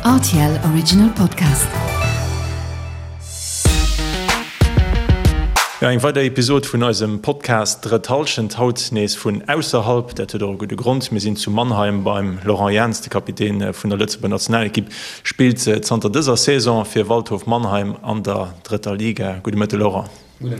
Rtl Original Podcast. Jo, eng weider Episod vun eisem Podcast Drëtt Hallschent, haut nees vun ausserhalb. Dat huet och e gudde Grond, Mir sinn zu Mannheim beim Laurent Jans, de Kapitän vun der Lëtzebuerger Nationalekipp spillt zanter dëser Saison fir Waldhof Mannheim an der drëtter Liga. Gudde Mëtte Laurent. Mir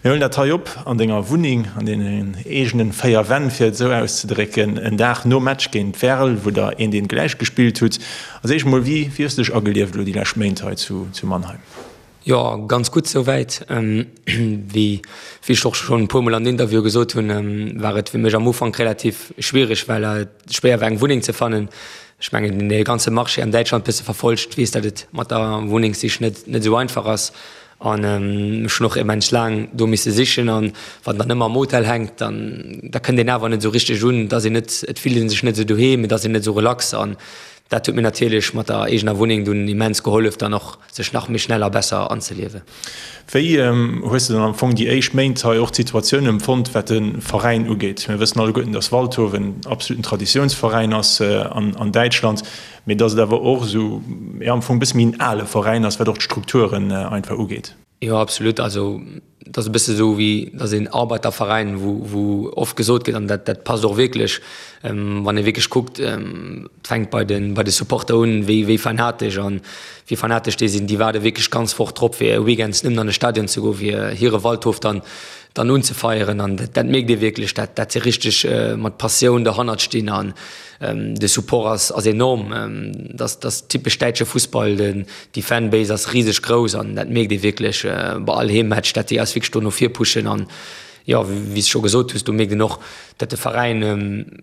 huelen dat hei op an denger Wunneng, an deenen eegenen 4 Wänn, fir et esou auszedrécken, en Dag nom Match géint Werl, wou der eent eent gläich gespillt hutt. Als éischt emol, wéi hues de dech agelieft elo déi lescht Méint hei zu Mannheim? Jo, ganz gutt souwäit. Wéi ech och schonn e puermol an Interviewe gesot hunn, war et fir mech am Ufank relativ schwiereg, well et schwéier war eng Wunneng ze fannen. Ech mengen, deen dee ganze Marché an Däitschland bësse verfollegt, weess, datt et mat der Wunnengssich net esou einfach ass. An ech hunn och immens laang do misse sichen. An wann dann ëmmer am Hotel hänkt, dann da kënnt een awer net esou richteg un. Et ass een net, et fillt ee sech net esou doheem, et ass een net esou relax. An dat huet mir natierlech mat der eegener Wunneng dunn immens gehollef, dann och sech nach méi schnell a besser anzeliewen. Wéi hues de dann am Fong déi éischt Méint hei och d'Situatioun empfonnt, wat de Veräin ugeet? Mir wëssen alleguerten, datt Waldhof en absoluten Traditiounsveräin ass an Däitschland. Mee dass et awer och esou, jo, am Fong e bësse méi en ale Veräin ass, wat och d'Strukturen einfach ugeet. Jo, absolut. Also et ass e bësse esou wéi, et ass een Arbeiterveräin, wou, wou oft gesot gëtt, an dat, dat passt och wierklech, wann ee wierklech kuckt, et fänkt bei de, bei de Supporter un, wéi, wéi fanatesch an wéi fanatesch déi sinn. Déi waarde wierklech d'ganz Woch drop, fir weekends nëmmen an de Stadion ze goen, fir hire Waldhof dann, dann unzefeieren. An dat, dat mierkt ee wierklech, dat, dat se richteg mat Passioun derhannert stinn an, De Support ass ass enorm. Dat ass typesch däitsche Fussball. Déi Fanbase ass riseg grouss an dat mierkt ee wierklech bei all Heemmatch, dat déi eis wierklech do no vir pushen. An jo, wéi s de scho gesot hues, do mierkt een och, datt de Veräin,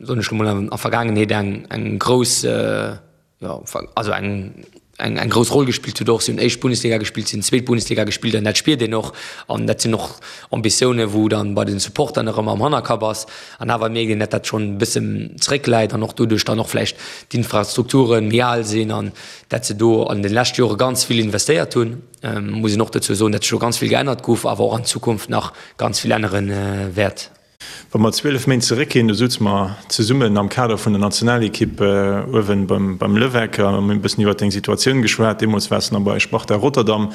soen ech lo mol, an der Vergaangenheet eng eng grouss, jo, also eng eng eng grouss Roll gespillt huet och. Si hunn éischt Bundesliga gespillt, si hunn zweet Bundesliga gespillt an dat spiert een och. An dat sinn och Ambitiounen, wou dann bei den Supportern nach ëmmer am Hannerkapp ass. An awer mierkt een, datt dat schonn e bëssen zeréckläit an och doduerch dann och vläicht d'Infrastrukture méi al sinn an dat se do an de leschte Jore ganz vill investéiert hunn. Muss een och dozou soen, datt sech do ganz vill geännert gouf, awer och an Zukunft nach ganz vill ännere wäert. Wa mer 12 Méint zeréckginn, do souze mer zesummen am Kader vun der Nationalekipp uewen beim Levecq a mir hunn e bëssen iwwert deng Situatioun geschwat. Deemools waars de nach bei Sparta Rotterdam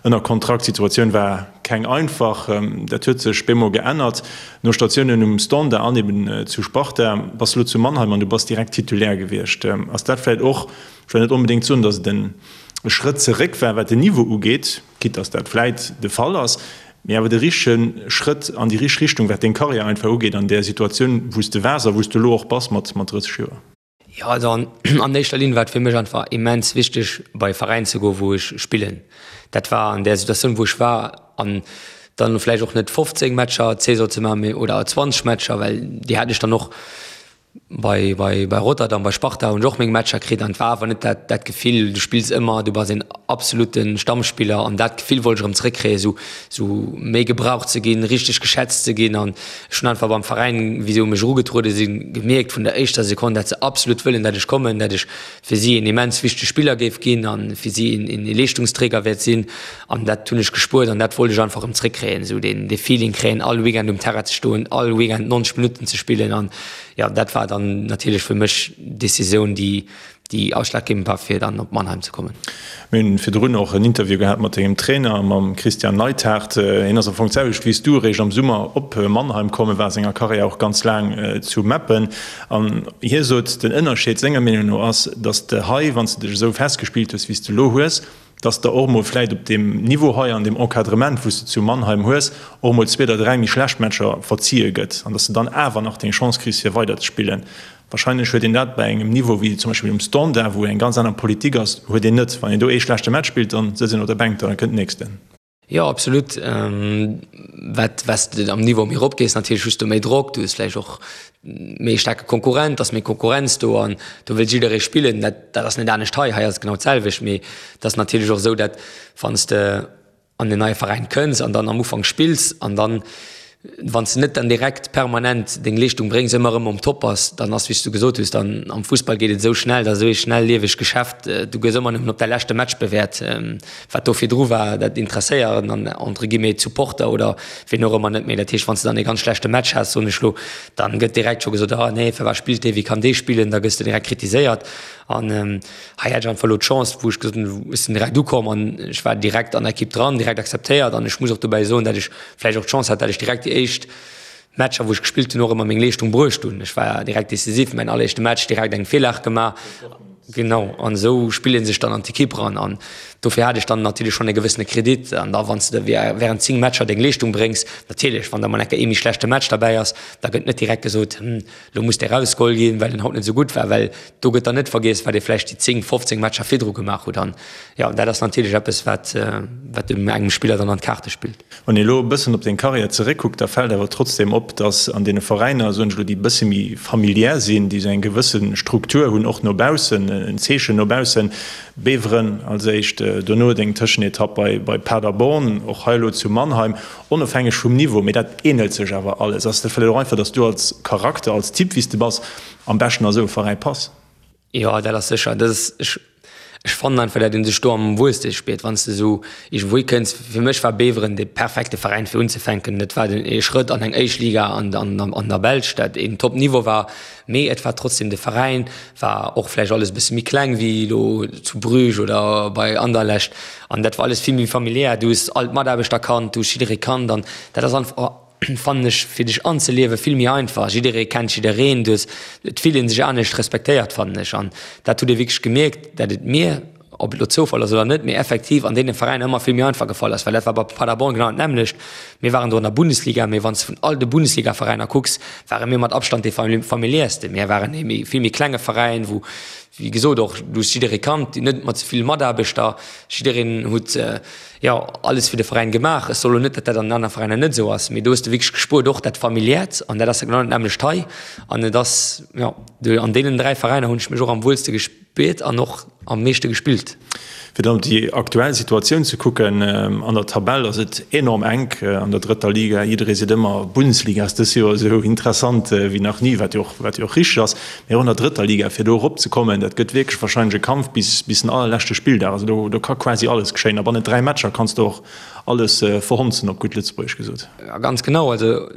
ënner Kontrakt. D'Situatioun war keng einfach. Dat huet sech bemol geännert. No Statiounen um Standard an eben zu Sparta bass de elo zu Mannheim an du bass direkt Titulaire gewiescht. Ass dat vläicht och, ech wëll net onbedéngt soen, datt et e Schrëtt zeréck war, wat den Niveau ugeet, quitte dass dat vläit de Fall ass, mee awer de richtege Schrëtt an déi richteg Richtung, wat deng Karriär einfach ugeet an där Situatioun, wou s de waars a wou s de elo och bass mat 30 Joer? Jo, also an éischter Linn war et fir mech einfach immens wichteg, bei e Veräin ze goen, wou ech spillen. Dat war an där Situatioun, wou ech war, an dann vläicht och net 15 Matcher d'Saison ze maachen, mee oder 20 Matcher, well déi hat ech dann och Bei, bei, bei Rotterdam, bei Sparta hunn ech och meng Matcher kritt an et war awer net dat, dat Gefill, du spills ëmmer, du bass een absolute Stammspiller an dat Gefill wollt ech erëm zréckkréien, esou, esou méi gebraucht ze ginn, richteg geschätzt ze ginn an ech hunn einfach beim Veräin, wéi se u mech erugetruede sinn, gemierkt vun der éischter Sekonn, dat se absolut wëllen, dat ech kommen, dat ech fir si een immens wichtege Spiller géif ginn a fir si een, een Leeschtungsträger wäert sinn an dat hunn ech gespuert an dat wollt ech einfach erëm zréckkréien, esou deen, dee Feeling kréien, all Weekend um Terrain ze stoen, all Weekend 90 Minutten ze spillen an jo, dat war dann natierlech fir mech d'Decisioun, déi déi ausschlaggebend war, fir dann op Mannheim ze kommen. Mir hunn virdrun och en Interview gehat mat dengem Trainer, mam Christian Neidhart. Hien ass am Fong d'selwecht wéi s du eréischt am Summer op Mannheim komm. E war a senger Karriär och ganz laang zu Meppen. An hie sot, den Ënnerscheed senger Meenung no ass, datt s de hei, wann s de dech esou festgespillt hues, wéi s de elo hues, dass de och mol vläit op deem Niveau hei an deem Encadrement, wou s de zu Mannheim hues, och mol zwee oder dräi méi schlecht Matcher verzie gëtt an dass de dann awer nach deng Chance kriss, fir weiderzespillen. Wahrscheinlech huet een dat bei engem Niveau wéi zum Beispill um Standard, wou eng ganz aner Politik ass, huet een net. Wann een do ee schlechte Match spillt, dann sëtzt een op der Bänk, da kënnt den nächsten. Jo, absolut. Wat wat s de am Niveau méi erop gees, natierlech hues du méi Drock, du hues vläicht och méi e staarke Konkurrent, ass méi Konkurrenz do an do wëll jidderee spillen. Dat dat ass net anescht hei, hei ass et genau d'selwecht. Mee et ass natierlech och esou, dat wann s de an en neie Veräin kënns an dann am Ufank spills an dann. Wann s de net dann direkt permanent deng Leeschtung bréngs, ëmmer erëm um Top bass, dann ass, wéi s du gesot hues, dann am Fussball geet et esou schnell, dat ass esou ee schnelliewegt Geschäft, du gëss ëmmer nëmmen op däi leschte Match bewäert. Wat do virdru war, dat interesséiert dann entre guillemets d'Supporter oder wien och ëmmer net méi. Dat heescht, wann s de dann ee ganz schlechte Match has, soen ech elo, dann gëtt direkt scho gesot, ah nee, firwat spillt dee, wéi kann dee spillen, da gëss de direkt kritiséiert. An hei hat ech einfach elo d'Chance, wou ech gesot hunn, ech sinn direkt ukomm an ech war direkt an der Ekipp dran, direkt akzeptéiert an ech muss och dobäi soen, dat ech vläicht och d'Chance hat, dat ech direkt déi éischt Matcher, wou ech gespillt hunn, och ëmmer meng Leeschtung bruecht hunn. Ech war direkt decisiv, mäin alleréischte Match direkt eng Virlag gemaach. Genau, an esou spillt ee sech dann an d'Ekipp eran. An dofir hat ech dann natierlech schonn e gewëssene Kredit. An da wann s de wärend 10 Matcher deng Leeschtung bréngs, natierlech, wann da mol eng Kéier ee méi schlechte Match derbäi ass, da gëtt net direkt gesot, hm, lo muss dee rausgeholl ginn, well en haut net esou gutt war, well do gëtt dann net vergiess, wat ee vläicht déi 10, 15 Matcher virdru gemaach huet. An jo, dat ass natierlech eppes, wat, wat engem Spiller dann an d'Kaarte spillt. Wann ee elo e bëssen op deng Karriär zeréckkuckt, da fält awer trotzdeem op, datt an deene Veräiner, soen ech elo, déi e bësse méi familiär sinn, déi esou eng gewësse Struktur hunn, och no baussen, en Zeechen no baussen, Beveren als éischt, dono deng Tëschenetapp bei bei Paderborn, och hei elo zu Mannheim, onofhängeg vum Niveau, mee dat ähnelt sech awer alles. Ass dat vläicht och einfach, datt du als Charakter, als Typ, wéi s de bass, am beschten a sou e Veräi pass? Jo, dat ass sécher. Dat ass, ech, ech fannen einfach, dat een sech do am wuelste spiert, wann s de esou iergendwou hikënns. Fir mech war Beveren de perfekte Veräin fir unzefänken. Dat war den ee Schrëtt an eng éischt Liga an, an, an der Belsch, dat een Top-Niveau war. Mee et war trotzdem de Veräin, war och vläicht alles e bësse méi kleng wéi elo zu Bruges oder bei Anderlecht. An dat war alles vill méi familiär. Du hues all d'Mataarbechter kannt, du hues jidderee kannt an dat ass einfach, fannen ech, fir dech anzeliewe vill méi einfach. Jidderee kennt jiddereen, du hues, et fillt ee sech anescht respektéiert, fannen ech. An dat hutt ee wierklech gemierkt, dat et mir, ob et elo Zoufall ass oder net, mee effektiv an deene Veräiner ëmmer vill méi einfach gefall ass, well dat war bei Paderborn genau dat nämmlecht. Mir waren do an der Bundesliga, mee wann s de vun all de Bundesligaveräiner kucks, ware mir mat Abstand dee familiärste. Mir waren ee méi, vill méi klenge Veräin, wou, wéi gesot, och du hues jidderee kannt, net mat esou ville Mataarbechter, jiddereen huet, jo, alles fir de Veräin gemaach. Ech soen elo net, datt dat an den anere Veräiner net esou ass, mee do hues de wierklech gespuert, och dat Familiäert, an dat ass genau dat nämmlecht hei. An et ass, jo, an deenen 3 Veräiner hunn ech mech och am wuelste gespuert an och am meeschte gespillt. Fir dann op déi aktuell Situatioun ze kucken, an der Tabell ass et enorm enk an der drëtter Liga. Jidderee seet ëmmer, Bundesliga ass dës Joer esou interessant wéi nach ni, wat jo och, wat jo och richteg ass. Mee och an der drëtter Liga, fir do erop ze kommen, dat gëtt wierklech warscheinlech e Kampf bis bis den allerleschte Spilldag. Also do do ka quasi alles geschéien a bannent 3 Matcher kanns de och alles verhonzen, op gutt Lëtzebuergesch gesot. Ja, ganz genau. Also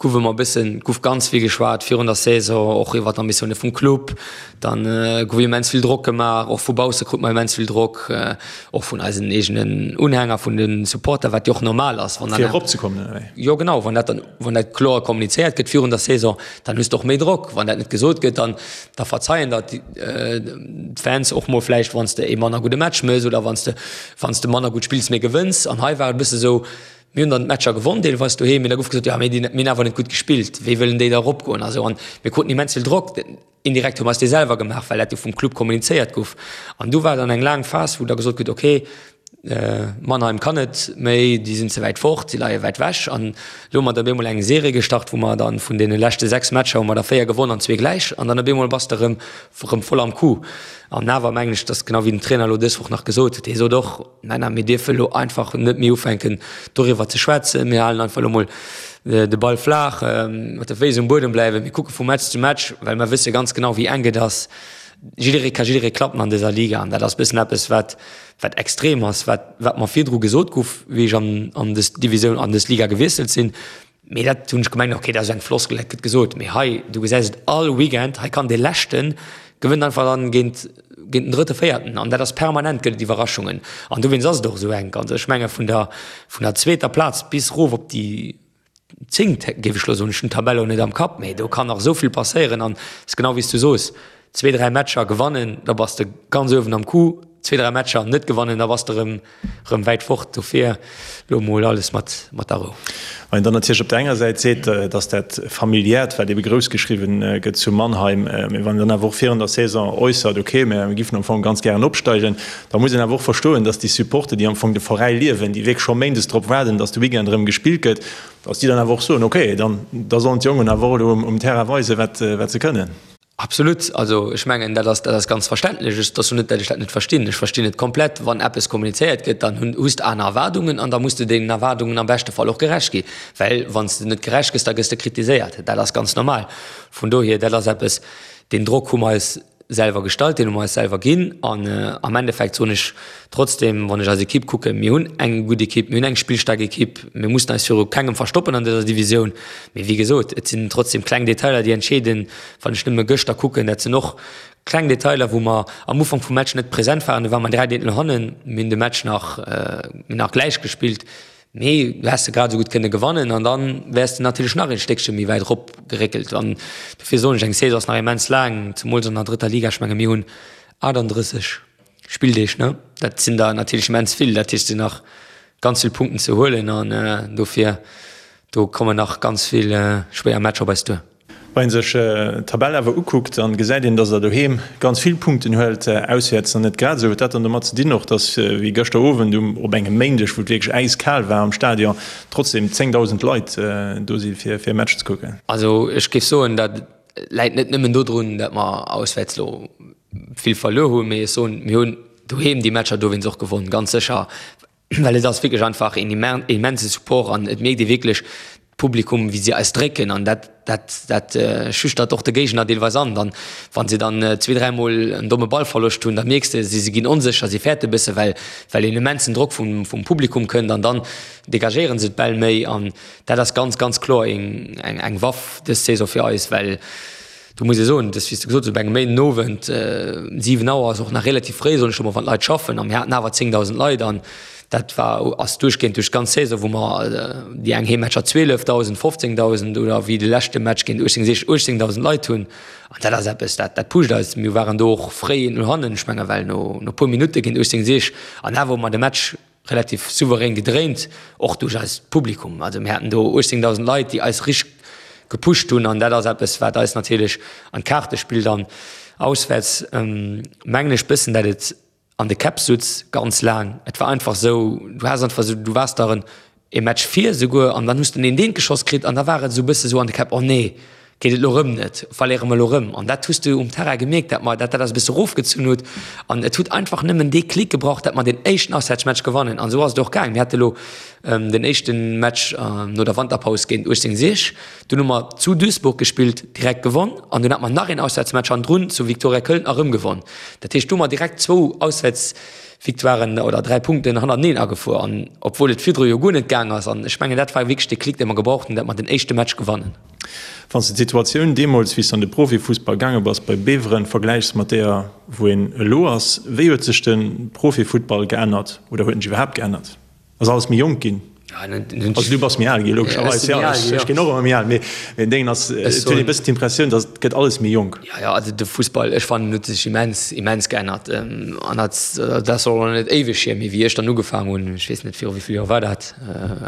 gouf ëmmer e bëssen, gouf ganz vill geschwat virun der Saison, och iwwer d'Ambitioune vum Club. Dann gouf immens vill Drock gemaach, och vu bausse krut mer immens vill Drock, och vun eisen eegenen Unhänger, vun de Supporter, wat jo och normal ass, wann dann. Fir eropzekommen, oder wéi? Jo, genau, wann dat dann. Wann dat kloer kommunizéiert gëtt virun der Saison, dann hues de och méi Drock. Wann dat net gesot gëtt, dann da verzeien der d'Fans och mol vläicht, wann s de ee manner gudde Match méchs oder wann s de wann s de manner gutt spills, mee gewënns. An hei war et e bësse sou, mir hunn dann d'Matcher gewonn deelweis doheem, mee da gouf gesot, jo mee mir hunn awer net gutt gespillt, wéi wëllen déi da eropgoen a sou. An mir kruten immens vill Drock. Indirekt hu mer eis dee selwer gemaach, well dat jo vum Club kommunizéiert gouf. An du war dann eng laang Phas, wou da gesot gëtt, okay, Mannheim kann net méi, déi sinn ze wäit fort, si leie wäit wech. An elo hu mer da op eemol eng Serie gestart, wou mer dann vun deene leschte 6 Matcher hu mer der 4 gewonn an zwee gläich. An dann op eemol bass de erëm erëm voll am Coup. An awer mengen ech, dass genau wéi den Trainer elo dës Woch nach gesot huet, hie sot och, Männer, mir dierfe elo einfach net méi ufänken doriwwer ze schwätzen. Mir halen einfach elo mol de Ball flaach, mat de Féiss um Buedem bleiwen. Mir kucke vu Match zu Match, well mer wësse ganz genau, wéi enk et ass. Jidderee ka jidderee klappen an dëser Liga an dat ass bëssen eppes, wat, wat extrem ass, wat, wat mer virdru gesot gouf, wéi ech an, an dës Divisioun, an dës Liga gewiesselt sinn. Mee dat hunn ech gemengt, ok, dat ass eng Floskel, dat gëtt gesot. Mee hei, du gesäis et all Weekend, hei kann dee Leschte gewënnt einfach dann géint, géint den Drëtte, Véierten. An dat ass permanent, gëtt et Iwwerraschungen. An dowéinst ass et och esou enk. Also ech menge vun der, vun der zweeter Plaz bis erof op déi zéngt, géif ech elo soen, ech hunn d'Tabell elo net am Kapp, mee do kann nach esou vill passéieren. An et ass genau wéi s du soos, zwee, dräi Matcher gewannen, da bass de ganz uewen am Coup, zwee, dräi Matcher net gewannen, da bass de erëm rëm wäit fort. Dofir lo mol alles mat mat der Rou. Wann een dann natierlech op der enger Säit seet, datt dat Familiäert, wat ebe grouss geschriwwen gëtt zu Mannheim, mee wann een dann awer och virun der Saison äussert, okay, mir giffen am Fong ganz gären opsteigen, da muss een awer och verstoen, datt déi Supporter, déi am Fong de Veräi liewen, déi wierklech scho méindes drop waarden, datt de Weekend erëm gespillt gëtt, datt déi dann awer och soen, okay, dann da sollen d'Jongen awer och elo um Terrain weisen, wat se kënnen. Absolut. Also ech mengen, dat ass, dat ass ganz verständlech. Ech, et ass jo net, dat ech dat net verstinn. Ech verstinn et komplett. Wann eppes kommunizéiert gëtt, dann hunn, hues de aner Erwaardungen an da muss de deenen Erwaardungen am beschte Fall och gerecht gi. Well wann s de net gerecht gëss, da gëss de kritiséiert. Dat ass ganz normal. Vun dohier, dat ass eppes, deen Drock hu mer eis selwer gestallt, deen hu mer eis selwer ginn. An am Endeffekt soen ech trotzdem, wann ech eis Ekipp kucken, mir hunn eng gutt Ekipp, mir hunn eng spillstaark Ekipp, mir mussen eis viru kengem verstoppen an dëser Divisioun. Mee wéi gesot, et sinn trotzdem kleng Detailer, déi entscheeden. Wann ech nëmme gëschter kucken, dat sinn och kleng Detailer, wou mer am Ufank vum Match net present waren. Do ware mer 3 Deetel hannen, mir hunn de Match nach, mir hunn nach gläich gespillt. Mee du häss se grad esou gutt kënne gewannen an dann wäers de natierlech nach een Stéckche méi wäit erop geréckelt. An dofir soen ech, eng Saison ass nach immens laang, zemools an der drëtter Liga. Ech menge mir hunn 38 Spilldeeg, ne? Dat sinn der natierlech immens vill. Dat heescht, et sinn nach ganz vill Punkten ze huelen an dofir, do kommen nach ganz vill schwéier Matcher op eis duer. Wa een sech d'Tabell awer ukuckt, dann gesäit een, dass der doheem ganz vill Punkten huelt, auswäerts dann net grad esou. Huet dat dann domat ze dinn och, dass wéi gëschter Owend um op engem Méindeg, wou et wierklech äiskal war am Stadion, trotzdem 10.000 Leit do si fir e Match ze kucken? Also ech géif soen, dat läit net nëmmen dodrun, dat mer auswäerts elo vill verluer hunn, mee ech soen, mir hunn doheem déi Matcher dowéinst och gewonn, ganz sécher. Well et ass wierklech einfach een immense Support an et mierkt ee wierklech d'Publikum, wéi si eis drécken an dat, dat, dat schüchtert och de Géigner deelweis an. Dann, wa si dann zwee, dräimol en domme Ballverloscht hunn, da mierks de, si ginn onsécher, si fäerte bësse well, well een immensen Drock vum, vum Publikum kënnt an dann degagéiere se d'Bäll méi an dat ass ganz, ganz kloer eng, eng Waff dës Saison fir eis, well Do muss ee soen, dass, wéi s de gesot hues, op engem Méindenowend, 7 Auer ass och nach relativ fréi, soen ech emol, wann d'Leit schaffen, a mir haten awer 10.000 Leit an dat war, ass duerchgehend duerch d'ganz Saison, wou mer déi eng Heemmatcher 12.000, 15.000 oder wéi de leschte Match géint 1860 18.000 Leit hunn. An dat ass eppes, dat, dat pusht eis. Mir waren do och fréi no hannen, ech menge well no no puer Minutte géint 1860 an awer hu mer de Match relativ souverän gedréint, och duerch eist Publikum. Also mir haten do 18.000 Leit, déi eis richteg gepusht hunn an dat ass eppes, wat eis natierlech an d'Kaarte spillt. An auswäerts mengen ech bëssen, dat et an de Käpp sutz ganz laang. Et war einfach esou, du has einfach esou, du waars der en ee Match vir esouguer an dann hues de en eent geschoss kritt an da war et esou bësse sou an de Käpp, oh nee, geet et elo rëm net, verléiere mer elo rëm. An dat hues de um Terrain gemierkt, dat mer, dat dat eis e bësse erofgezunn huet. An et huet einfach nëmmen dee Klick gebraucht, dat mer deen éischten Auswäertsmatch gewannen. An esou ass et och gaang. Mir hate elo den éischte Match no der Wanterpaus géint 1860, dunn hu mer zu Duisburg gespillt, direkt gewonn. An dunn hate mer nach een Auswäertsmatch hannendrun zu Viktoria Köln a rëm gewonn. Dat heescht, do hu mer direkt zwou Auswäertsvictoiren oder 3 Punkten hannerteneen agefuer. An obwuel et virdru jo guer net gaang ass. An ech mengen, dat war wierklech dee Klick, dee mer gebraucht hunn, dat mer den éischte Match gewannen. Wann s de d'Situatioun deemools, wéi s de an de Profifussball gaange bass bei Beveren, vergläichs mat deeër, wou een elo ass, wéi huet sech de Profifuttball geännert oder huet en sech iwwerhaapt geännert? Ass alles méi jonk ginn? Also du bass méi al ginn, logescherweis, jo, ech ginn och ëmmer méi al, mee den Déngen ass, et huet ee bëssen d'Impressioun, datt et gëtt alles méi jonk. Jo, jo, also de Fussball, ech fannen, huet sech immens, immens geännert. An dat, dat ass och nach net éiweg hier, mee wéi ech dann ugefaangen hunn, ech weess net, viru wéi vill Joer war dat?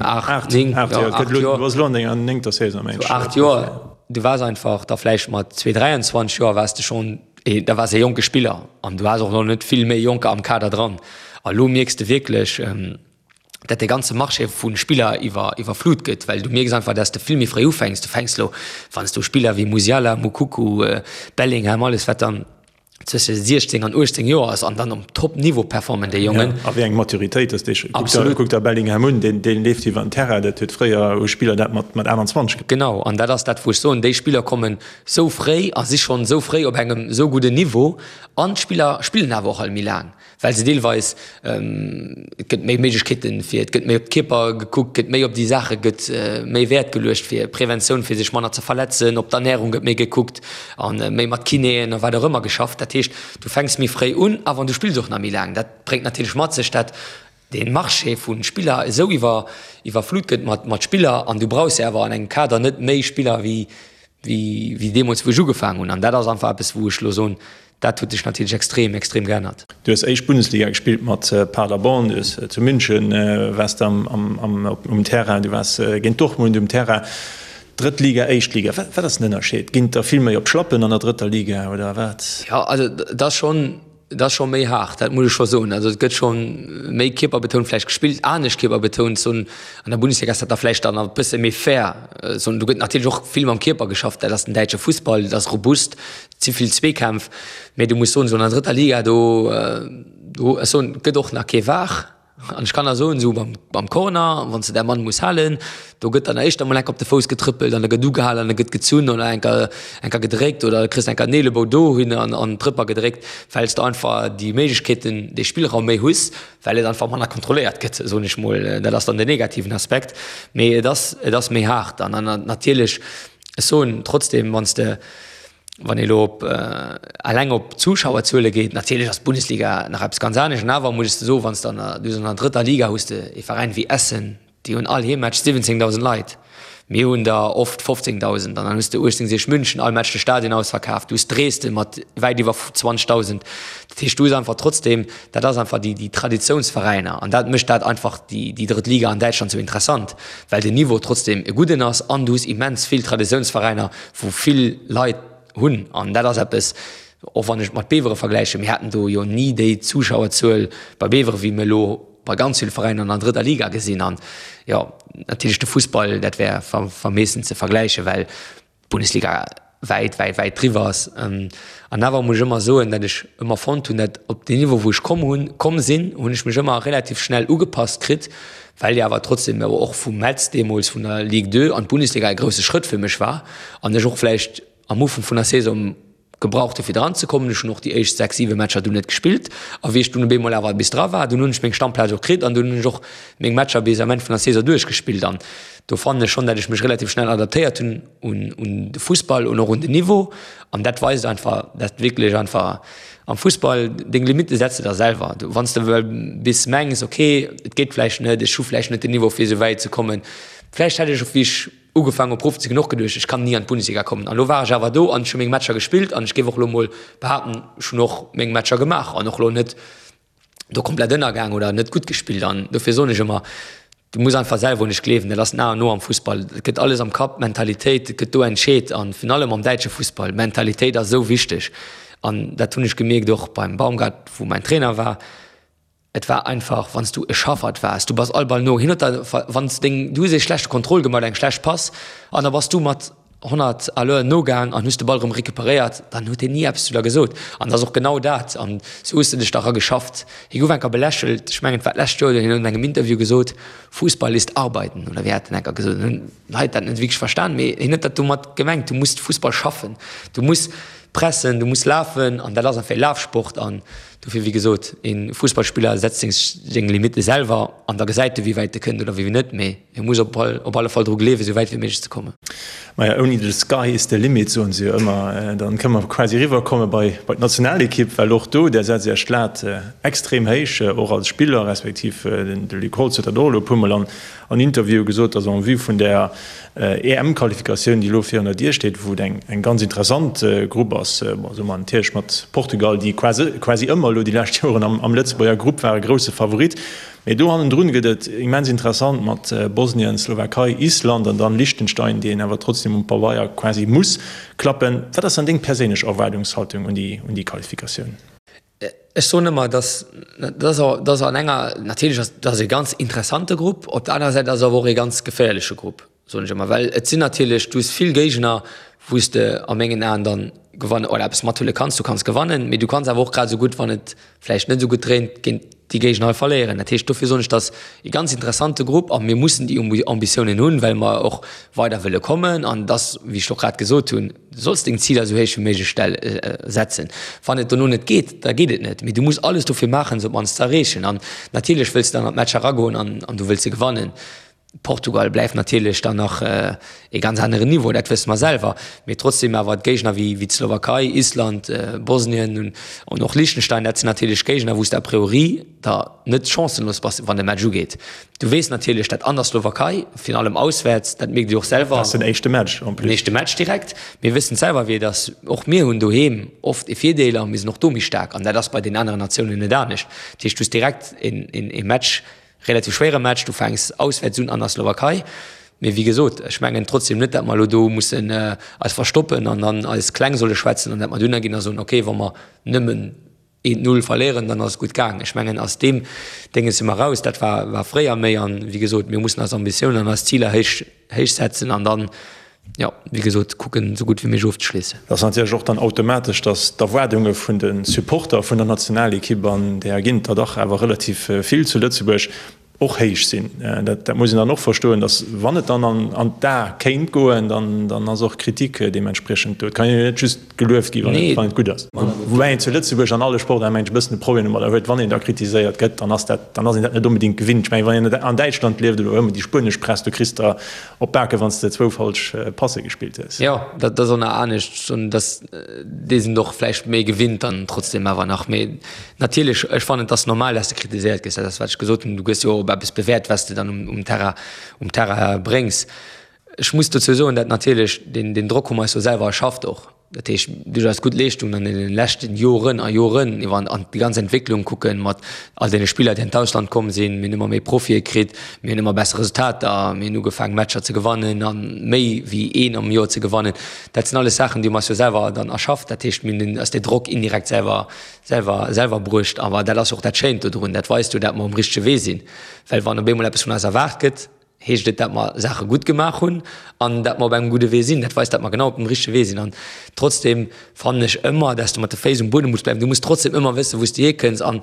8, 9, 8 Joer, 8 Joer. Du bass elo an denger néngter Saison, mengen ech. 8 Joer, du waars einfach da vläicht mat 2, 23 Joer waars de schonn, da waars e jonke Spiller an du haas och nach net vill méi Jonker am Kader dran. A lo mierks de wierklech, dat de ganze Marché vu Spiller iwwer, iwwerflut gëtt, well du mierks einfach, dass de vill méi fréi ufänks. Du fänks lo, wann s du Spiller wéi Musiala, Moukoko, Bellingham, alles wat dann, zwësche 16 an 18 Joer ass an dann um Top-Niveau performen déi Jongen. Ja, a wéi eng Maturitéit ass déi? Absolut. Kuck der Bellingham un, deen, deen leeft iwwer den Terrain, dat huet fréier hu Spiller dat mat, mat 28 gemaach. Genau, an dat ass dat wou ech soen, déi Spiller kommen sou fréi a si schonn sou fréi op engem sou gudden Niveau an d'Spiller spillen awer och all méi laang. Well se deelweis, et gëtt méi Méiglechkeeten fir, et gëtt méi op d'Kierper gekuckt, gëtt méi op déi Saache gëtt méi Wäert geluecht fir Preventioun, fir sech manner ze verletzen, op d'Ernärung gëtt méi gekuckt a méi mat Kinéen a wat och ëmmer geschafft. Dat heescht, du fänks méi fréi un a wann du spills och nach méi laang. Dat bréngt natierlech mat sech, dat dee Marché vu Spiller esou iwwer iwwerflut gëtt mat mat Spiller an du brauchs jo awer an engem Kader net méi Spiller wéi wéi wéi deemools wou ech ugefaangen hunn. An dat ass einfach eppes wou ech elo soen, Dat huet sech natierlech extrem, extrem geännert. Du hues éischt Bundesliga gespillt mat Paderborn, du hues zu München waars de um Terrain, du waars géint Dortmund um Terrain. Drëtt Liga, éischt Liga, wat ass den Ënnerscheed? Ginn et der vill méi op d'Schlappen an der drëtter Liga oder wat? Jo, also et ass schonn, et ass scho méi haart, dat muss ech scho soen. Also et gëtt scho méi kierperbetount vläicht gespillt, anescht kierperbetount. Soen, an der Bundesliga ass dat da vläicht dann e bësse méi fair. Soen, do gëtt natierlech och vill mam Kierper geschafft, dat ass den däitsche Fussball, dat ass robust. Et si vill Zweekämpf, mee du muss soen, esou an der drëtter Liga, do, do, ech soen, et gëtt och nach kee VAR. An ech kann der soen, esou beim, beim Corner, wann s de däi Mann muss halen, do gëtt dann éischter mol enk op de Fouss getrëppelt an da gëtt ugehalen an da gëtt gezunn oder enker, enker gedréckt oder da kriss de enker en Eelebou dohin an, an d'Rëpper gedréckt, well s de einfach déi Méiglechkeeten, dee Spillraum méi hues, well et einfach manner kontrolléiert gëtt, soen ech mol. Dat ass dann den negativen Aspekt. Mee et ass, et ass méi haart an, an natierlech, ech soen trotzdem, wann s de, Wann ee elo op eleng op d'Zuschauerzuele geet, natierlech ass d'Bundesliga nach eppes ganz anescht. An awer muss ech de soen, wann s de an der, du hues an der drëtter Liga hues de ee Veräin wéi Essen, déi hunn all Heemmatch 17.000 Leit. Mir hunn der oft 15.000. An dann hues de 1860 München, all Match de Stadion ausverkaaft. Du hues Dresden mat wäit iwwer 20.000. Dat heescht, du hues einfach trotzdem, dat ass einfach déi, déi Traditiounsveräiner. An dat mécht dat einfach déi, déi drëtt Liga an Däitschland sou interessant, well den Niveau trotzdem e gudden ass an du hues immens vill Traditiounsveräiner, wou vill Leit hunn, an dat ass eppes, och wann ech et mat Bevere vergläichen, mir haten do jo ni déi Zuschauerzuel bei Bevere wéi mir elo bei ganz ville Veräiner an der drëtter Liga gesinn. An jo, natierlech de Fussball, dat wär vermeessen ze vergläichen, well d'Bundesliga wäit, wäit, wäit driwwer ass. An awer muss ech ëmmer soen, datt ech ëmmer fonnt hunn, datt op deen Niveau wou ech komm hunn, komm sinn, hunn ech mech ëmmer relativ schnell ugepasst kritt, well jo awer trotzdem awer och vu Metz deemools vun der Ligue 2 an d'Bundesliga e grousse Schrëtt fir mech war an ech och vläicht am Ufank vun der Saison gebraucht hu fir dran ze kommen. Ech hunn och déi éischt 6, 7 Matcher dunn net gespillt a wéi ech dunn op eemol awer bis dra war, dunn hunn ech meng Stammplaz och kritt an dunn hunn ech och meng Matcher bis am Enn vun der Saison duerchgespillt an do fannen ech schonn, dat ech mech relativ schnell adaptéiert hunn un un de Fussball un och un den Niveau an dat weist einfach, dat wierklech einfach am Fussball deng Limitte setz de der selwer. Du wann s de well bis mengs okay et geet vläicht net, ech hu vläicht net den Niveau fir esou wäit ze kommen, vläicht hätt ech och wéi ech ugefaangen hu Profi ze ginn och geduecht ech kann ni an d'Bundesliga kommen an elo war ech awer do an ech hu meng Matcher gespillt an ech géif och elo mol behaapten ech hunn och meng Matcher gemaach an och elo net do komplett ënnergaang oder net gutt gespillt an dofir soen ech ëmmer, du muss einfach selwer un dech gleewen, dat ass den A an O am Fussball, et gëtt alles am Kapp, d'Mentalitéit gëtt do entscheet an virun allem am däitsche Fussball, d'Mentalitéit ass esou wichteg an dat hunn ech gemierkt och beim Baumgart, wou mäin Trainer war, et war einfach wann s du e Schaffert waars, du bass all Ball no, hien huet der, wann s deng, du hues ee schlechte Contrôle gemaach oder eng schlecht Pass an da bass du mat 100 à l'heure nogaang an hues de Ball erëm recuperéiert, dann huet hien ni eppes zu der gesot. An dat ass och genau dat. An sou hues de dech da erageschafft. Hie gouf enker belächelt, ech mengen et war d'lescht Joer, hien huet an engem Interview gesot, Fußball ist Arbeiten, oder wéi hat en enker gesot. An hunn d'Leit dat net wierklech verstan, mee hien huet dat domat gemengt, du muss Fussball schaffen, du muss pressen, du muss lafen an dat ass einfach e Lafsport. An dofir, wéi gesot, e Fussballspiller setzt seng Limitte selwer an da gesäit e wéi wäit e kënnt oder wéi net, mee. Hie muss op alle Fall dru gleewen, esou wäit wéi méiglech ze kommen. Maja, ouni the sky is the limit, soen se jo ëmmer. Dann kënne mer quasi eriwwer komme bei d'Nationalekipp, well och do, där setzt Iech d'Lat extrem héich, och als Spiller, respektiv de Luc Holtz huet dat och elo e puermol an Interviewe gesot, dass en vue vun där EM-Qualifikatioun, déi elo virun der Dier steet, wou et eng ganz interessant Grupp ass, bon, soe mer natierlech mat Portugal, déi quasi ëmmer elo déi lescht Joren am Lëtzebuerger Grupp ware, grousse Favorit. Mee do hannendrun gëtt et immens interessant mat Bosnien, Slowakei, Island an dann Liechtenstein, déi een awer trotzdem um Pabeier quasi muss klappen. Wat ass dann deng perséinlech Erwaardungshaltung un déi un déi Qualifikatioun? Ech soen ëmmer, dass dass an enger, natierlech ass dat e ganz interessante Grupp, op der anerer Säit ass et awer och e ganz geféierleche Grupp. soen ech ëmmer, well et sinn natierlech, du hues vill Géigner, wou s de a mengen Aen dann gewannen oder eppes mathuele kanns. Du kanns gewannen, mee du kanns awer och grad esou gutt, wann et vläicht net esou gutt dréint, géint déi Géigner hei verléieren. Dat heescht, dofir soen ech, dat ass e ganz interessante Grupp a mir mussen déi Ambitiounen hunn, well mer och weider wëlle kommen. An et ass, wéi ech och grad gesot hunn, du solls deng Ziler esou héich wéi méiglech stell setzen. Wann et dono net geet, da geet et net, mee du muss alles dofir maachen, se op d'mannst ze erreechen. An natierlech wëlls de dann an d'Matcher eragoen an du wëlls se gewannen. Portugal bleift natierlech dann nach e ganz aneren Niveau, dat wësse mer selwer, mee trotzdem awer d'Géigner wéi wéi d'Slowakei, Island, Bosnien an och Liechtenstein, dat sinn natierlech Géigner, wou s de a priori da net chancenlos bass, wann de Match ugeet. Du weess natierlech, dat an der Slowakei, virun allem auswäerts, dat mierkt Dir och selwer. Dat ass den éischte Match en plus. Den éischte Match direkt. Mir wëssen selwer, wéi et ass. Och mir hunn doheem oft e Virdeel a mir sinn och do méi staark an dat ass bei den aneren Natiounen net anescht. Dat heescht, du hues direkt e Match, Relativ schwéiere Match, du fänks auswäerts un an der Slowakei. Mee wéi gesot, ech mengen trotzdem net, dat mer elo do mussen eis verstoppen an dann eis kleng solle schwätzen an dat mer dunner ginn a soen, okay, wa mer nëmmen eent Null verléieren, dann ass et gutt gaang. Ech mengen, aus deem Dénges si mer raus. Dat war, war fréier méi. An, wéi gesot, mir mussen eis Ambitiounen an eis Ziler héich, héich setzen an dann. Jo, wéi gesot, kucken esou gutt wéi méiglech ofzeschléissen. Et ass natierlech och dann automatesch, datt d'Erwaardunge vun de Supporter vun der Nationalekipp, an där ginn et der dach awer relativ vill zu Lëtzebuerg, och héich sinn. Dat muss een dann och verstoen, datt wann et dann an d'A kéint goen, dann ass och Kritik deementspriechend do. Et kann jo net just gelueft gi wann et gutt ass. Woubäi een zu Lëtzebuerg an alle Sportaarten, mengen ech, e bëssen e Problem domadder huet, wann een da kritiséiert gëtt, dann ass dat, dann ass een dat net onbedéngt gewinnt. Ech mengen, wann een an Däitschland lieft oder ëmmer déi spuenesch Press, do kriss de op d'Bake wann s de zwou falsch Passe gespillt hues. Jo, dat ass och nach anescht, dass déi sinn et och vläicht méi gewinnt dann trotzdem awer nach. Mee natierlech, ech fannen, et ass normal, dass de kritiséiert gëss. Dat ass wat ech gesot hunn, du gëss jo och op eppes bewäert, wat s de dann um Terrain, um Terrain bréngs. Ech muss dozou soen, dat natierlech deen, deen Drock hu mer eis jo selwer erschafft och. Dat heescht, duerch eis gutt Leeschtungen an deene leschten Joren a Joren, iwwer an déi ganz Entwécklung kucken, mat all deene Spiller, déi an d'Ausland komm sinn, mir hunn ëmmer méi Profie kritt, mir hunn ëmmer besser Resultater, mir hunn ugefaangen, Matcher ze gewannen a méi wéi een am Joer ze gewannen. Dat sinn alles Saachen, déi hu mer eis jo selwer dann erschafft. Dat heescht, mir hunn eis dee Drock indirekt selwer, selwer, selwer bruecht. Awer dat ass jo och dat Schéint dodrun, dat weist jo, dat mer um richtege Wee sinn. Well wann op eemol eppes vun eis erwaart gëtt, heescht et, dat mer Saache gutt gemaach hunn an dat mer op engem gudde Wee sinn. Dat weist, dat mer genau op dem richtege Wee sinn. An trotzdem fannen ech ëmmer, dass du mat de Féiss um Buedem muss bleiwen. Du muss trotzdem ëmmer wëssen, wou s du hierkënns. An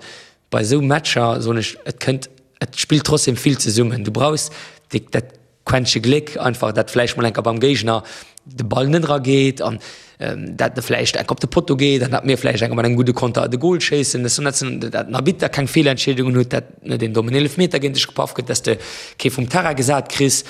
bei esou Matcher, soen ech, et kënnt, et spillt trotzdem vill zesummen. Du brauchs déi, dat Quäntche Gléck einfach, dat vläicht mol enker beim Géigner de Ball net erageet an dat e vläicht enk op de Potto geet an dat mir vläicht enker mat engem gudde Konter de Gol schéissen. Dat sinn dat den Arbitter keng Feelentscheedungen huet, dat net een dommen Eelefmeter géint dech gepaff gëtt, dass de kee vum Terrain gesat kriss,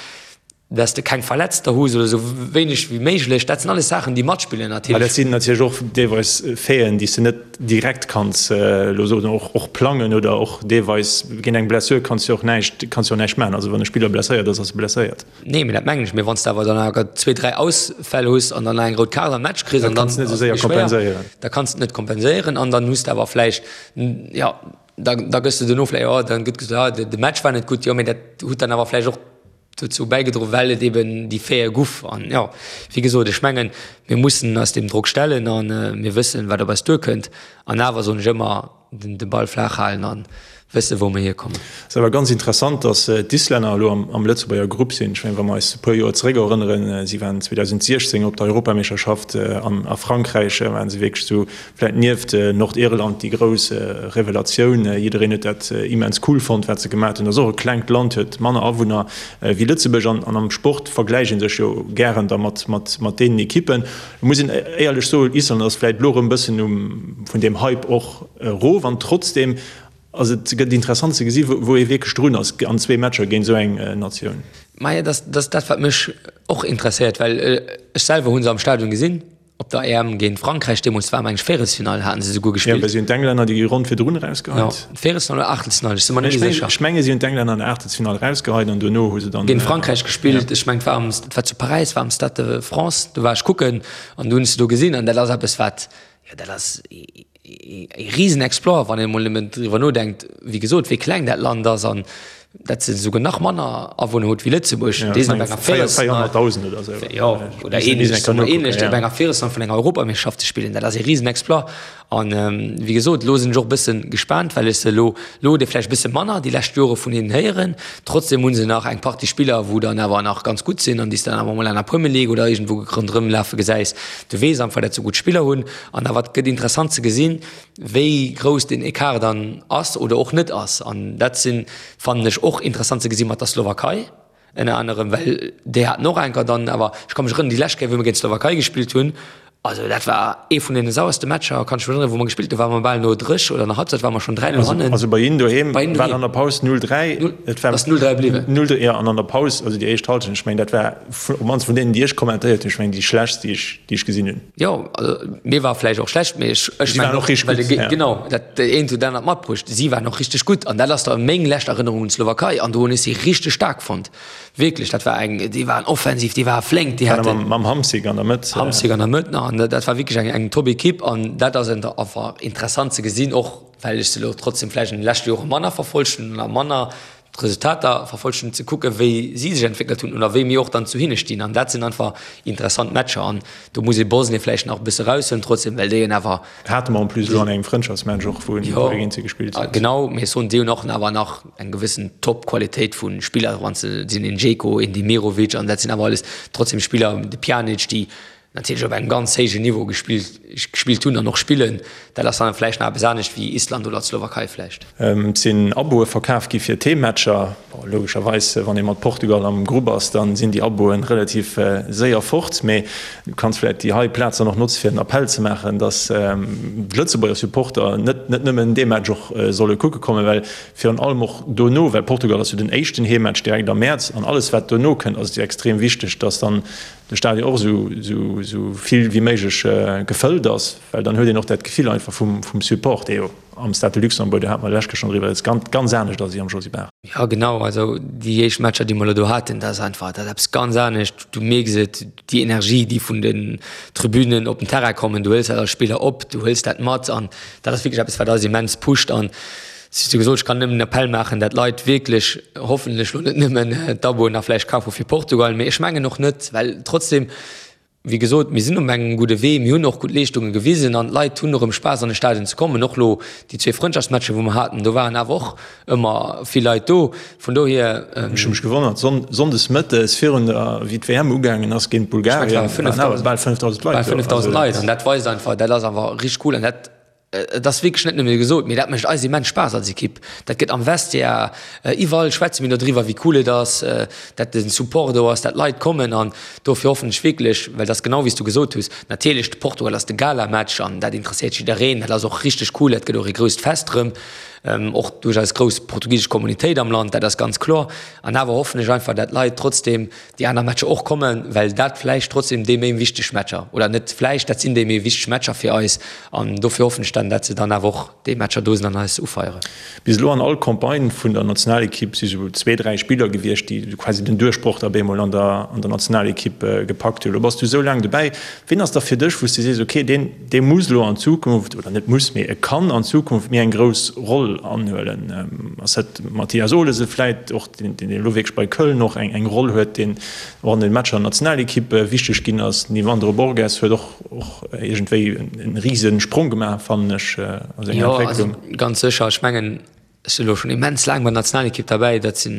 dass de keng Verletzter hues oder esou wéineg wéi méiglech. Dat sinn alles Saachen, déi matspillen natierlech. Mä dat sinn natierlech och deelweis Faiten, déi s de net direkt kanns elo soen, och och plangen oder och deelweis géint eng Blessure kanns de och näischt, kanns de och näischt maachen. Also wann e Spiller blesséiert ass, ass e blesséiert. Nee, mee dat mengen ech. Mee wann s de awer dann awer zwee, dräi Ausfäll hues an dann nach eng rout Kaart am Match kriss an dann ass et méi schwéier, da kanns de et net kompenséieren an dann hues de awer vläicht, jo, da da gëss de duerno vläicht, jo, dann gëtt gesot, ah, de Match war net gutt, jo, mee dat huet dann awer vläicht och dozou bäigedroen, well et eben déi Faite guff. An jo, wéi gesot, ech mengen, mir mussen eis deem Drock stellen a mir wëssen, wat op eis duerkënnt. An awer soen ech ëmmer, de Ball flaach halen an wëssen, wou mer hierkommen. Ass awer ganz interessant, dass d'Islänner elo am Lëtzebuerger Grupp sinn. Ech mengen, wa mer eis e puer Joer zeréck erënneren, si waren 2016 op der Europameeschterschaft an a Frankräich, waren se wierklech esou vläit nieft Nordirland déi grouss Revelatioun. Jiddereen huet dat immens cool fonnt, wat se gemaat hunn. Ass och e klengt Land, huet manner Awunner wéi Lëtzebuerg an am Sport vergläicht ee sech jo gären da mat deenen Ekippen. Et muss een éierlech soen, Island ass vläit elo erëm bëssen um vun deem Hype och erof an trotzdeem ass et gëtt interessant ze gesi wou ee wierklech drun ass an zwee Matcher géint esou eng Natioun. Maja, dat ass dat wat mech och interesséiert, well ech selwer hu se am Stadion gesinn op der EM géint Frankräich deemools, war meng ech Véierelsfinall haten se souguer gespillt. Jo, well si hunn d'Englänner déi Ronn virdrun erausgeheit. Jo, Véierelsfinall oder Aachtelsfinall, ech si mer net méi sécher. Ech menge si hunn d'Englänner an der Aachtelsfinall erausgeheit an duerno hu se dann. Géint Frankräich gespillt. Ech mengen et war am, et war zu Paräis, war am Stade de France, do war ech kucken an do hunn ech se do gesinn an dat ass eppes wat, jo dat ass ee Risenexploit, wann een emol nëmmen driwwer nodenkt, wéi gesot, wéi kleng dat Land ass an dat se esouguer nach manner Awunner huet wéi Lëtzebuerg. Déi sinn op enger Véierelsfinall, 400.000 oder esou, jo, oder ähnlech, soe mer ähnlech, op enger Véierelsfinall vun enger Europameeschterschaft ze spillen, dat ass ee Risenexploit. An wéi gesot, elo sinn ech och e bësse gespaant, well ech se elo, elo huet ee vläicht e bësse manner déi lescht Jore vun hinnen héieren. Trotzdem hu se nach eng Partie Spiller, wou dann awer nach ganz gutt sinn an déi s de dann awer emol an der Premier League oder iergendwou ronderëm lafe gesäis. Du weess einfach, dat se gutt Spiller hunn. An awer et gëtt interessant ze gesinn, wéi grouss deen Ecart dann ass oder och net ass. An dat sinn, fannen ech, och interessant ze gesi mat der Slowakei. Ënner anerem, well déi haten och enker dann awer, ech ka mech erënneren, déi lescht Kéier, wou mir géint d'Slowakei gespillt hunn, also dat war ee vun deene sauerste Matcher, kann ech mech erënneren, wou mer gespillt hunn, ware mer bal no dréch oder no Halbzeit ware mer schonn 3, 0 hannen. Also bei hinnen doheem war an der Paus 0, 3. Et war ass 0, 3 bliwwen. 0, 3, jo, an an der Paus, also déi éischt Halschent, ech mengen, dat war op mannst vun deenen, déi ech kommentéiert hunn, ech mengen déi schlechtst, déi ech, déi ech gesinn hunn. Jo, also mir war vläicht och schlecht, mee ech, ech Si waren och richteg gutt, ja. Genau, dat eent huet dat anert matbruecht. Si waren och richteg gutt an dat ass da meng lescht Erënnerung un d'Slowakei an do hunn ech si richteg staark fonnt. Wierklech, dat war eng, déi waren offensiv, déi ware flénk, déi haten. Mam Hamsik an der Mëtt. Hamsik an der Mëtt nach an dat war wierklech eng, eng Top-Ekipp an dat ass einfach interessant ze gesinn, och well ech se elo trotzdem vläicht an de leschte Jore manner verfollegt hunn a manner. d'Resultater verfollegt hunn, ze kucken, wéi si sech entwéckelt hunn oder wéi mir och dann zu hinne stinn. An dat sinn einfach interessant Matcher. An do muss ee Bosnien vläicht nach e bësse eraushuelen trotzdem, well déi hunn awer. Hate mer en plus elo an engem Frëndschaftsmatch och, wou mir géint si gespillt hunn. Genau, mee ech soen, déi hunn och awer nach eng gewëssen Top-Qualitéit vu Spiller, wann s de sinn een Dzeko, een Demirovic an dat sinn awer alles trotzdem Spiller, de Pjanic, déi natierlech op engem ganz héijen Niveau gespillt gespillt hunn an och spillen. Dat ass dann vläicht nach eppes anescht wéi Island oder d'Slowakei vläicht. Et sinn Aboe verkaf gi fir d'Heemmatcher. Bon, logescherweis, wann ee mat Portugal am Grupp ass, da sinn déi Aboe relativ séier fort. Mee du kanns vläicht déi hei Plaz dann och notze fir en Appell ze maachen, datt d'Lëtzebuerger Supporter net net nëmmen dee Match och solle kucke kommen, well virun allem och dono, well Portugal ass jo den éischten Heemmatch direkt am Mäerz an alles wat dono kënnt ass et jo extrem wichteg, datt dann de Stadion och esou vill wéi méiglech gefëllt ass, well dann huet een och dat Gefill einfach vum Support, dee jo am Stade de Luxembourg, do hate mer d'lescht Kéier schonn driwwer, ganz, ganz anescht ass wéi am Josy Barth. Jo genau, also déi éischt Matcher, déi mer elo do haten, dat ass einfach, dat ass eppes ganz anescht. Du mierks et, déi Energie, déi vun den Tribünen op den Terrain kommen, du hëls dat als Spiller op, du hëls dat mat an dat ass wierklech eppes, wat eis immens pusht an Wéi gesot, ech kann nëmmen den Appell maachen, dat d'Leit wierklech hoffentlech elo net nëmmen d'Aboen nach vläicht kafe fir Portugal, mee ech mengen och net, well trotzdem, wéi gesot, mir sinn op engem gudde Wee, mir hunn och gutt Leeschtunge gewisen an d'Leit hunn erëm Spaass an de Stadion ze kommen. Och elo déi zwee Frëndschaftsmatcher, wou mer haten, do waren awer och ëmmer vill Leit do. Vun dohier. Ech hu mech gewonnert, sonndes mëttes virun der, wéi d'WM ugaangen ass géint Bulgarien, waren awer bal 5.000 Leit do. Bal 5.000 Leit an dat weist einfach, dat ass awer richteg cool an dat Et ass wierklech net nëmme gesot, mee dat mécht eis immens Spaass als Ekipp. Dat gëtt am Vestiaire, iwwerall schwätze mir dodriwwer, wéi cool et ass, dat de Support do ass, dat d'Leit kommen. An dofir hoffen ech wierklech, well et ass genau wéi s du gesot hues, natierlech, de Portugal ass de Gala-Match an dat interesséiert jiddereen, dat ass och richteg cool, dat gëtt och ee grousst Fest erëm, och duerch eis grouss portugisesch Communautéit am Land, dat ass ganz kloer. An awer hoffen ech einfach, dat d'Leit trotzdeem déi aner Matcher och kommen, well dat vläicht trotzdem déi méi wichteg Matcher, oder net vläicht, dat sinn déi méi wichteg Matcher fir eis an dofir hoffen ech dann, dat se dann awer och déi Matcher do sinn an eis ufeieren. Bis elo an all Campagne vun der Nationalekipp si sou zwee, dräi Spiller gewiescht, déi quasi den Duerchbroch da bemol an der an der Nationalekipp gepackt hunn. Elo bass du esou laang dobäi. Ween ass da fir dech, wou s du sees, okay, deen, dee muss elo an Zukunft, oder net muss, mee e kann an Zukunft méi eng grouss Roll anhuelen? Ass dat Mathias Olesen vläit och, deen elo wierklech bei Köln och eng Roll huet, deen och an den Matcher an der Nationalekipp wichteg ginn ass? Den Yvandro Borges huet och och iergendwéi e rise Sprong gemaach, fannen ech, a senger Entwécklung. Jo, also ganz sécher. Ech mengen, Ech sinn elo schonn immens laang bei der Nationalekipp derbäi, dat si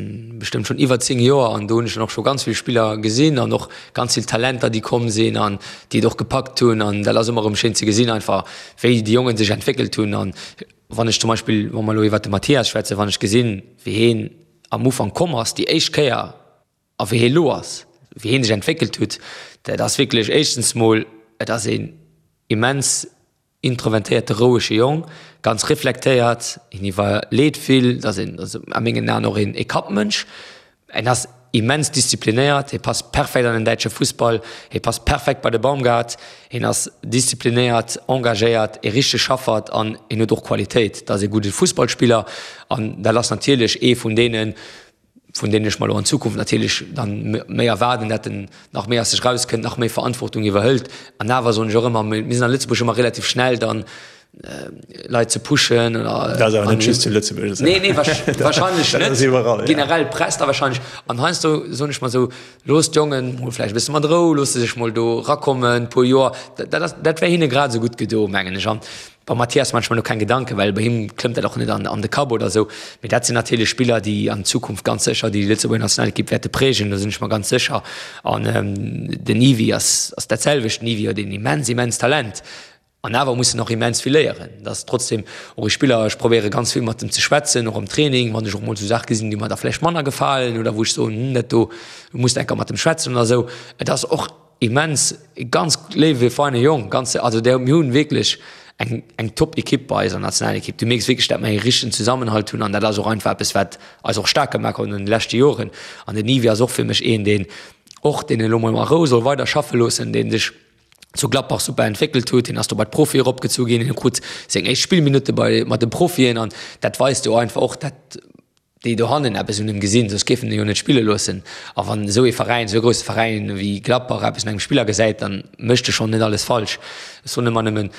bestëmmt schonn iwwer 10 Joer an do hunn ech dann och scho ganz vill Spiller gesinn an och ganz vill Talenter, déi komm sinn an déi et och gepackt hunn an dat ass ëmmer erëm schéin ze gesinn einfach, wéi déi Jongen sech entwéckelt hunn. An wann ech zum Beispill, wa mer elo iwwert de Mathias schwätzen, wann ech gesinn, wéi heen am Ufank komm ass déi éischt Kéier a wéi hee elo ass, wéi heen sech entwéckelt huet, dat ass wierklech éischtens mol, et ass een immens Introvertéierte rouege Jong, ganz reflektéiert, hien iwwerleet vill, ass een a mengen Aen och een Kappmënsch. En ass immens disziplinéiert, hie passt perfekt an den däitsche Fussball, hie passt perfekt bei de Baumgart. Hien ass disziplinéiert, engagéiert, ee richtege Schaffert an hien huet och Qualitéit. Dat ass ee gudde Fussballspiller an dat ass natierlech ee vun deenen, vun deenen ech mer elo an Zukunft natierlech dann méi erwaarden, dat en nach méi aus sech rauskënnt, nach méi Verantwortung iwwerhëlt. An awer soen ech och ëmmer, mir sinn a Lëtzebuerg ëmmer relativ schnell dann Leit ze pushen oder. Dat ass awer net just zu Lëtzebuerg esou. Nee, nee, wahrscheinlech net. Dat ass iwwerall, ja. Generell d'Press da wahrscheinlech. An heiansdo soen ech mer esou, Loosst d'Jongen mol vläicht e bësse mat Rou, loosst se sech mol do erakommen, e puer Joer. Dat ass, dat wär hinne grad esou gutt gedo, mengen ech. An Beim Mathias maan ech mer do keng Gedanken, well bei him klëmmt dat och net an de Kapp oder sou. Mee dat sinn natierlech Spiller, déi an Zukunft ganz sécher déi Lëtzebuerger Nationalekipp wäerte prägen, do sinn ech mer ganz sécher. An den Yvi ass dat selwecht. Den Yvi huet een immens, immens Talent an awer muss en och immens vill léieren. Dat ass trotzdem och e Spiller, ech probéiere ganz vill mat em ze schwätzen, och am Training, wann ech och mol sou Saache gesinn, déi mer da vläicht manner gefalen oder wou ech soen, hm, dat do muss de eng Kéier mat em schwätzen oder sou. Et ass och Immens, e ganz léiwe feine Jong, ganz, also der, mir hunn wierklech eng eng top Ekipp bei eiser Nationalekipp. Du mierks wierklech, dat mer ee richtegen Zesammenhalt hunn an dat ass och einfach eppes, wat eis och staark gemaach huet an de leschte Joren. An den Yves ass och fir mech een, deen och, deen elo mol a Rou soll weider schaffe loossen, deen sech zu Gladbach super entwéckelt huet. Hien ass do bei d'Profie eropgezu ginn, hien krut seng éischt Spillminutte bei mat de Profien an dat weist jo einfach och, dat déi dohannen eppes un em gesinn, soss géifen en jo net spille loossen. A wann esou ee Veräin, esou e grousse Veräin wéi Gladbach eppes un engem Spiller gesäit, dann mécht e schonn net alles falsch. Ech soen ëmmer nëmmen,.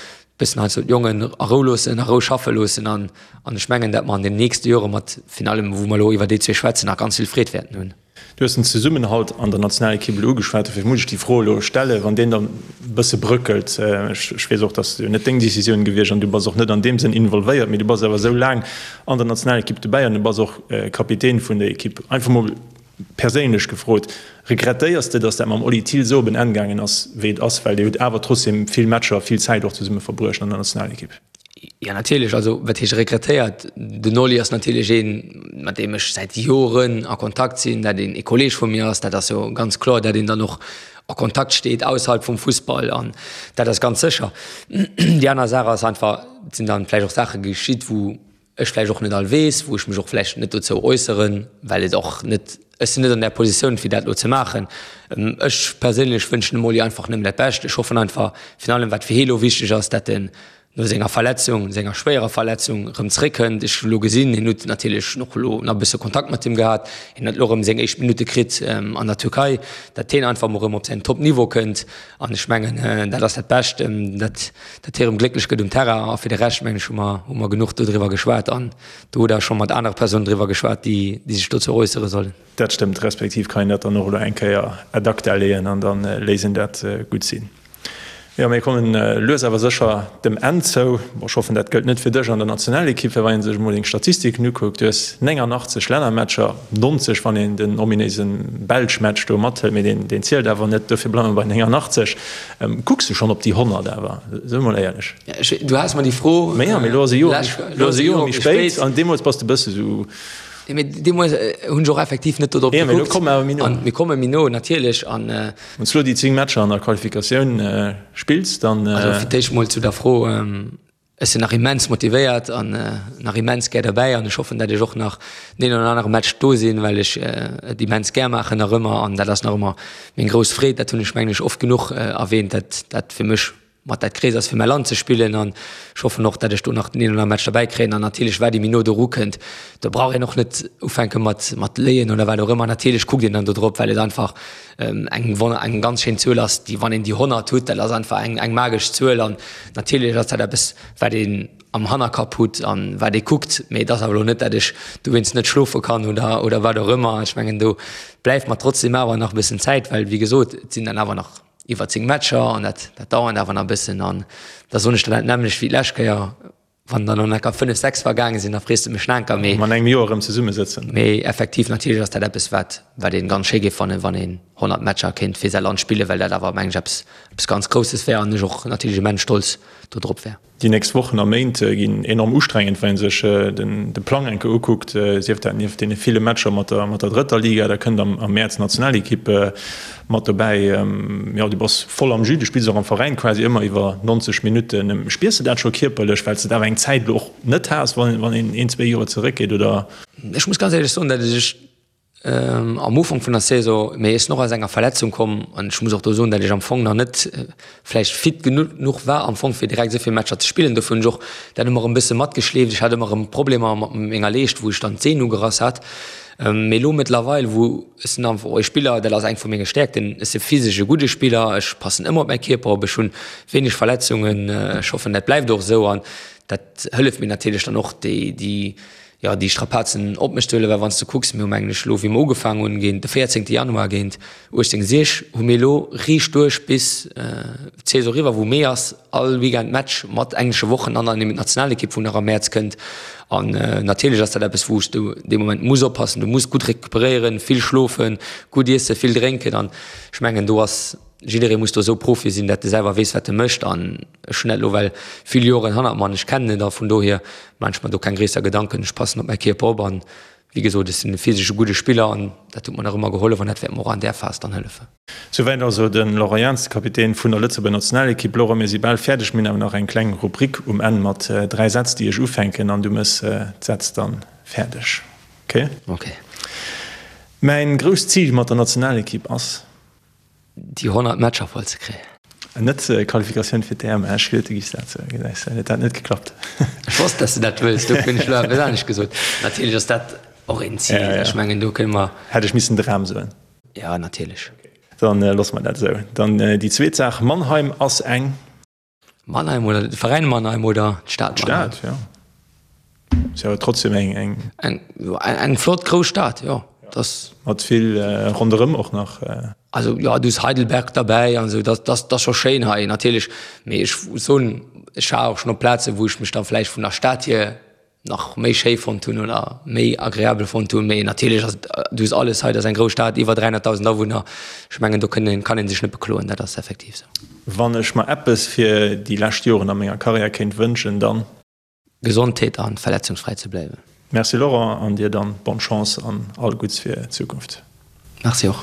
Bëssen heiansdo d'Jongen a Rou loossen, a Rou schaffe loossen an an ech mengen, dat mer an den nächste Jore mat virun allem, wou mer elo iwwer déi zwee schwätzen, nach ganz vill Freed wäerten hunn. Du hues den Zesummenhalt an der Nationalekipp elo ugeschwat, dofir muss ech déi Fro elo stellen, wann deen dann e bësse bröckelt. Ech weess och, dass jo net deng Decisioun gewiescht an du bass och net an deem Sënn involvéiert, mee du bass awer esou laang an der Nationalekipp dobäi an du bass och Kapitän vun der Ekipp. Einfach mol perséinlech gefrot, Regrettéiers de, dass dat mam Oli Thill esou op en Enn gaangen ass, wéi et ass? Well dir hutt awer trotzdeem vill Matcher, vill Zäit och zesumme verbruecht an der Nationalekipp. Jo, natierlech. Also, wat heescht regrettéiert? Den Oli ass natierlech een, mat deem ech säit Joren a Kontakt sinn, dat een e Kolleeg vu mir ass. Dat ass jo ganz kloer, dat een dann och a Kontakt steet ausserhalb vum Fussball an dat ass ganz sécher. Déi aner Saach ass einfach, et sinn dann vläicht och Saache geschitt, wou ech vläicht och net all weess, wou ech mech och vläicht net dozou äusseren, well et och net, ech sinn net an där Positioun fir dat elo ze maachen. Ech perséinlech wënschen dem Oli einfach nëmmen dat Bescht. Ech hoffen einfach, virun allem wat fir hie elo wichteg ass, dat en no senger Verletzung, senger schwéierer Verletzung erëm zréckkënnt. Ech hu elo gesinn, hien huet natierlech och elo nach e bësse Kontakt mat him gehat, hien huet elo erëm seng éischt Minutte kritt an der Türkei, dat hien einfach emol erëm op säin Top-Niveau kënnt. An ech mengen, dat ass dat Bescht, dat dat hie erëm glécklech gëtt um Terrain. A fir de Rescht, mengen ech, hu mer, hu mer genuch dodriwwer geschwat an do hutt Der scho mat anere Persounen driwwer geschwat, déi, déi sech dozou äussere sollen. Dat stëmmt, respektiv kann een dat dann och elo eng Kéier ad acta leeën an da léisst een dat gutt sinn. Jo, mir kommen lues awer sécher dem Enn zou. Bon, ech hoffen, dat gëllt net fir dech an der Nationalekipp, well wann ee sech emol deng Statistiken ukuckt, du hues 89 Lännermatcher, 90, wann een den ominéise Belsch-Match do mathëlt, mee deen, deen zielt awer net, dofir bleiwe mer bei 89. Kucks du schonn op déi 100 awer? Soe mol éierlech. Du has mer déi Fro. Mee jo, mee elo ass e Joer, elo ass e Joer méi spéit an deemools bass de e bësse sou. Jo, mee deemools hunn ech och effektiv net do drop gekuckt. Jo, mee elo komme mer awer méi no. An mir komme méi no, natierlech. An. Wann s du elo déi 10 Matcher an der Qualifikatioun spills, dann. Also fir d'éischt mol zu der Fro, Ech sinn nach immens motivéiert an nach immens gär derbäi an ech hoffen, dat ech och nach deen oder anere Match do sinn, well ech et immens gär maachen nach ëmmer an dat ass nach ëmmer meng grouss Freed. Dat hunn ech mengen ech oft genuch erwähnt, dat dat fir mech mat dat Gréisst ass fir mäi Land ze spillen an ech hoffen och, dat ech do nach den een oder anere Match derbäi kréien an natierlech wat ee méi no doru kënnt, do brauch een och net ufänke mat mat léien oder wat och ëmmer. Natierlech kuckt een dann do drop, well et einfach eng wonner eng ganz schéin Zuel ass, déi wann een déi 100 hutt, dat ass einfach eng eng magesch Zuel an natierlech ass dat eppes wat een am Hannerkapp hutt an wat ee kuckt, mee et ass awer elo net, dat ech dowéinst net schlofe kann oder oder wat och ëmmer. Ech mengen do bleift mer trotzdem awer nach e bëssen Zäit, well wéi gesot, et sinn dann awer nach iwwer 10 Matcher an dat dat dauert awer nach e bëssen an da soen ech der dat nämmlecht wéi d'lescht Kéier. Wann der no enker 5, 6 vergaange sinn, da frees de mech nach enker. Mee. An engem Joer erëm zesummesëtzen. Mee effektiv, natierlech ass dat eppes, wat, wat ee ganz schéi géif fannen, wann een 100 Matcher kéint fir säi Land spillen, well dat awer, mengen ech, eppes, eppes ganz Grousses wär an ech och natierlech immens stolz do drop wär. Déi nächst Wochen a Méint ginn enorm ustrengend, wann ee sech den, de Plang eng Kéier ukuckt, sief dat nieft deene ville Matcher mat der, mat der drëtter Liga, da kënnt am, am Mäerz d'Nationalekipp Mat dobäi, jo, du bass voll am Jus, du spills och am Veräin quasi ëmmer iwwer 90 Minutten. Spiers de dat scho kierperlech, well s de et awer eng Zäit elo och net has, wann een een, zwee Joer zeréckgeet, oder? Ech muss ganz éierlech soen, datt ech am Ufank vun der Saison, mee ech sinn och aus enger Verletzung komm an ech muss och do soen, datt ech am Fong nach net vläicht fit genuch war am Fong fir direkt esou vill Matcher ze spillen. Dofir hunn ech och dat ëmmer erëm e bësse matgeschleeft. Ech hat ëmmer erëm Problemer mat menger Leescht, wou ech dann d'Sehn ugerass hat. Mee elo mëttlerweil, wou ech sinn einfach och e Spiller, dat ass eng vu menge Stäerkten, ech si physesch e gudde Spiller, ech passen ëmmer op mäi Kierper op, ech hunn wéineg Verletzungen, ech hoffen dat bleift och esou an dat hëlleft mir natierlech dann och déi, déi, jo, déi Strapazen op mech ze huelen, well wann s de kucks, mir hu mengen ech elo wéi mer ugefaangen hunn géint de 14 Januar géint 18 Sieg hu mir elo riicht duerch bis d'Saison eriwwer, wou Mee ass, all Weekend Match mat englesche Wochen an dann eben d'Nationalekipp, wou nach am Mäerz kënnt. An natierlech ass dat eppes, wou s du dee Moment muss oppassen. Du muss gutt recuperéieren, vill schlofen, gutt iessen, vill drénken. An ech mengen, do ass jidderee muss do esou Profi sinn, dat e selwer weess, wat e mécht. An ech hunn dat elo well vill Joren hannert mer an ech kennen et. A vun dohier maan ech mer do keng gréisser Gedanken. Ech passen op mäi Kierper op an wéi gesot, ech sinn e physesche gudde Spiller an dat huet mer nach ëmmer gehollef an dat wäert mer och an där Phas dann hëllefen. Souwäit also de Laurent Jans, de Kapitän vun der Lëtzebuerger Nationalekipp. Laurent, mir si bal fäerdeg. Mir hunn awer nach eng kleng Rubrik um Enn mat 3 Sätz, déi ech ufänken an du mëss d'Sätz dann fäerdeg. Ok? Ok. Mäin grousst Zil mat der Nationalekipp ass. Déi 100 Matcher voll ze kréien. Net Qualifikatioun fir d'EM, ech geduet du giffs dat soen, gesäis de, huet dat net geklappt. Ech wosst, dass de dat wëlls, dofir hunn ech elo eppes anescht gesot. Natierlech ass dat och een Zil, ech mengen do kënne mer. Hätt ech missen Dram soen. Jo, natierlech. Dann loosse mer dat esou. Dann déi zweet Saach, Mannheim ass eng. Mannheim oder de Veräin Mannheim oder d'Stad Mannheim? D'Stad, jo. Ass jo trotzdem eng, eng. Eng, jo, eng flott grouss Stad, jo. Das. Mat vill ronderëm och nach. Also jo, du hues Heidelberg derbäi an esou, dat, dat ass scho schéin hei natierlech. Mee ech soen, ech war och schonn op Plazen, wou ech mech da vläicht vun der Stad hier nach méi schéi fonnt hunn oder méi agreabel fonnt hunn. Mee natierlech ass et, du hues alles hei, dat ass eng grouss Stad, iwwer 300.000 Awunner. Ech mengen, do kënn een, kann ee sech net bekloen, dat ass effektiv esou. Wann ech mer eppes fir déi lescht Joren a menger Karriär kéint wënschen, dann. Gesondheet an verletzungsfräi ze bléiwen. Merci Laurent, an dir dann bonne Chance an all Gutts fir d'Zukunft. Merci och.